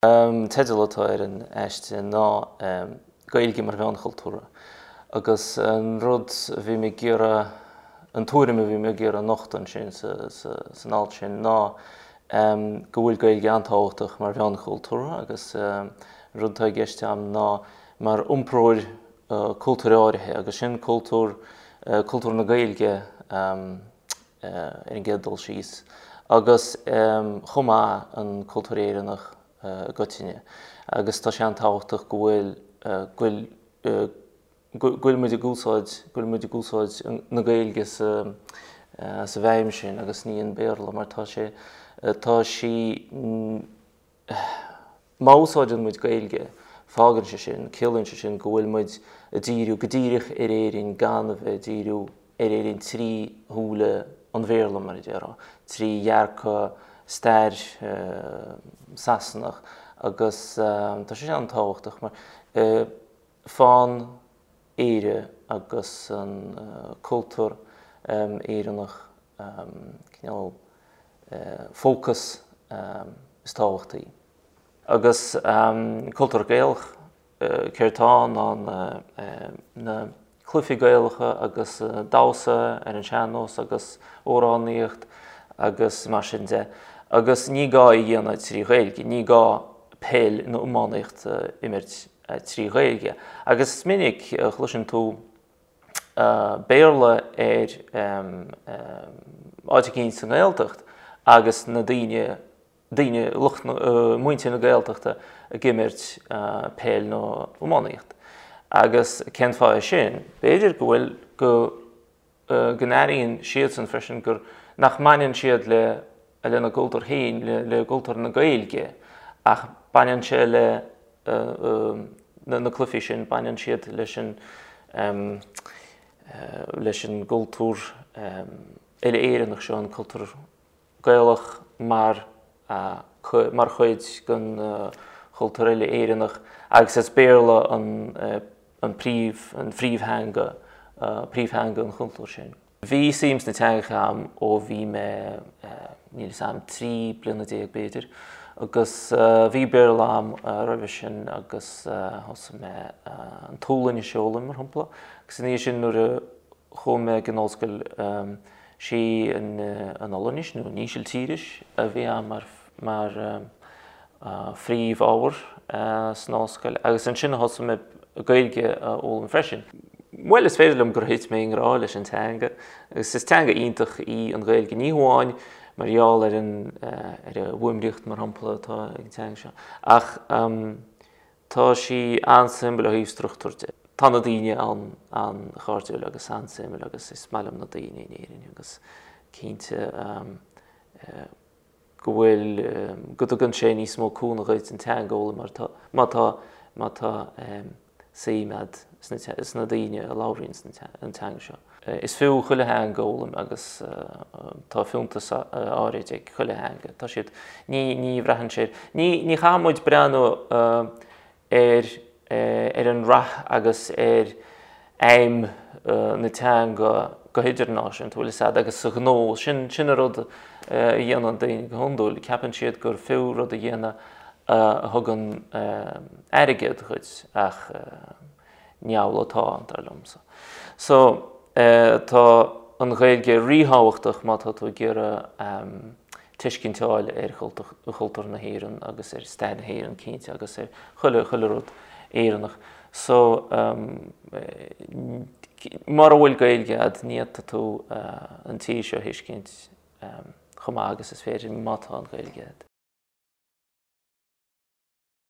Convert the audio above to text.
An teideal atá ar an aiste ná Gaeilge mar Mheán Chultúrtha agus an rud a bhí mé ag iarraidh, an tuairim a bhí mé ag iarraidh a nochtadh ansin san alt sin ná go bhfuil Gaeilge an-tábhachtach mar mheán chultúrtha agus an rud atá i gceist agam ná mar iompróir cultúir áirithe agus sin cultúr, cultúr na Gaeilge. ar an gcéad dul síos, agus chomh maith an cultúr Éireannach i gcoitinne. Agus tá sé an-tábhachtach go bhfuil, go bhfuil, go bhfuil muid ag úsáid, go bhfuil muid ag úsáid na Gaeilge sa, sa bhfeidhm sin agus ní an Béarla mar tá sé, tá sí, Má úsáideann muid Gaeilge, fágann sé sin, ciallaíonn sé sin go bhfuil muid ag díriú go díreach ar Éirinn gan a bheith ag díriú ar Éirinn trí shúile an Bhéarla, mar a déarfá, trí dhearcadh stair Sasanach agus tá sé sin an-tábhachtach mar fágann Éire agus an cultúr Éireannach cineál fócas is tábhachtaí. Agus cultúr Gaelach, céard atá ann ná na cluichí Gaelacha agus damhsa ar an sean-nós agus amhránaíocht agus mar sin de. Agus ní gá é a dhéanamh trí Ghaeilge, ní gá peil nó iománaíocht a imirt trí Ghaeilge. Agus is minic a chloiseann tú Béarla ar áit eicínt sa nGaeltacht agus na daoine, daoine, lucht na, muintir na Gaeltachta ag imirt peil nó iománaíocht. Agus cén fáth é sin? B'fhéidir go bhfuil, go, go n-airíonn siadsan freisin gur, nach mbaineann siad le, lena gcultúr féin, le cultúr na Gaeilge ach baineann sé le na cluichí sin, baineann siad leis an leis an gcultúr uile-Éireannach seo, an cultúr Gaelach mar mar chuid den chultúr uile-Éireannach agus is Béarla an an príomh an phríomhtheanga príomhtheanga an chultúir sin. Bhí suim sna teangacha agam ó bhí mé, níl 'fhios a'm, 13 bliana b'fhéidir, agus bhí Béarla agam roimhe sin agus thosaigh mé an tSualainnis a fhoghlaim, mar shampla, agus ina dhiaidh sin nuair a chuaigh mé ag an ollscoil sí an Ollainnis nó an Ísiltíris a bhí agam mar, mar phríomhábhar san ollscoil agus ansin a thosaigh mé Gaeilge a fhoghlaim freisin. Bhuel, is féidir liom gur thit mé i ngrá leis an teanga agus is teanga iontach í an Ghaeilge, ní hamháin mar gheall ar an ar an bhfuaimríocht mar shampla atá ag an teanga seo ach tá sí an-suimiúil ó thaobh struchtúir de. Tá na daoine an-chairdiúil agus an-suimiúil agus is maith liom na daoine in Éirinn agus cinnte go bhfuil, go dtugann sé níos mó cúnamh dhuit an teanga a fhoghlaim mar tá, má tá, má tá suim a'd sna, sna daoine a labhraíonn an teanga seo. Is fiú chuile theanga a fhoghlaim agus tá fiúntas áirid ag chuile theanga. Tá siad, ní, ní bhraitheann sé, ní, ní chaithfidh muid breathnú ar ar an rath agus ar fheidhm na teanga go hidirnáisiúnta, bhfuil 'fhios a'd, agus sa ghnó. Sin sin an rud a dhéanann daoine go hiondúil, ceapann siad gur fiú rud a dhéanamh a thugann airgead dhuit ach ní amhlaidh atá, dar liomsa. So, tá an Ghaeilge ríthábhachtach má tá tú ag iarraidh tuiscint a fháil ar chultúr na hÉireann agus ar stair na hÉireann cinnte agus ar chuile chuile rud Éireannach. So mura bhfuil Gaeilge a'd ní fhéadfaidh tú an tír seo a thuiscint chomh maith agus is féidir má tá an Ghaeilge a'd.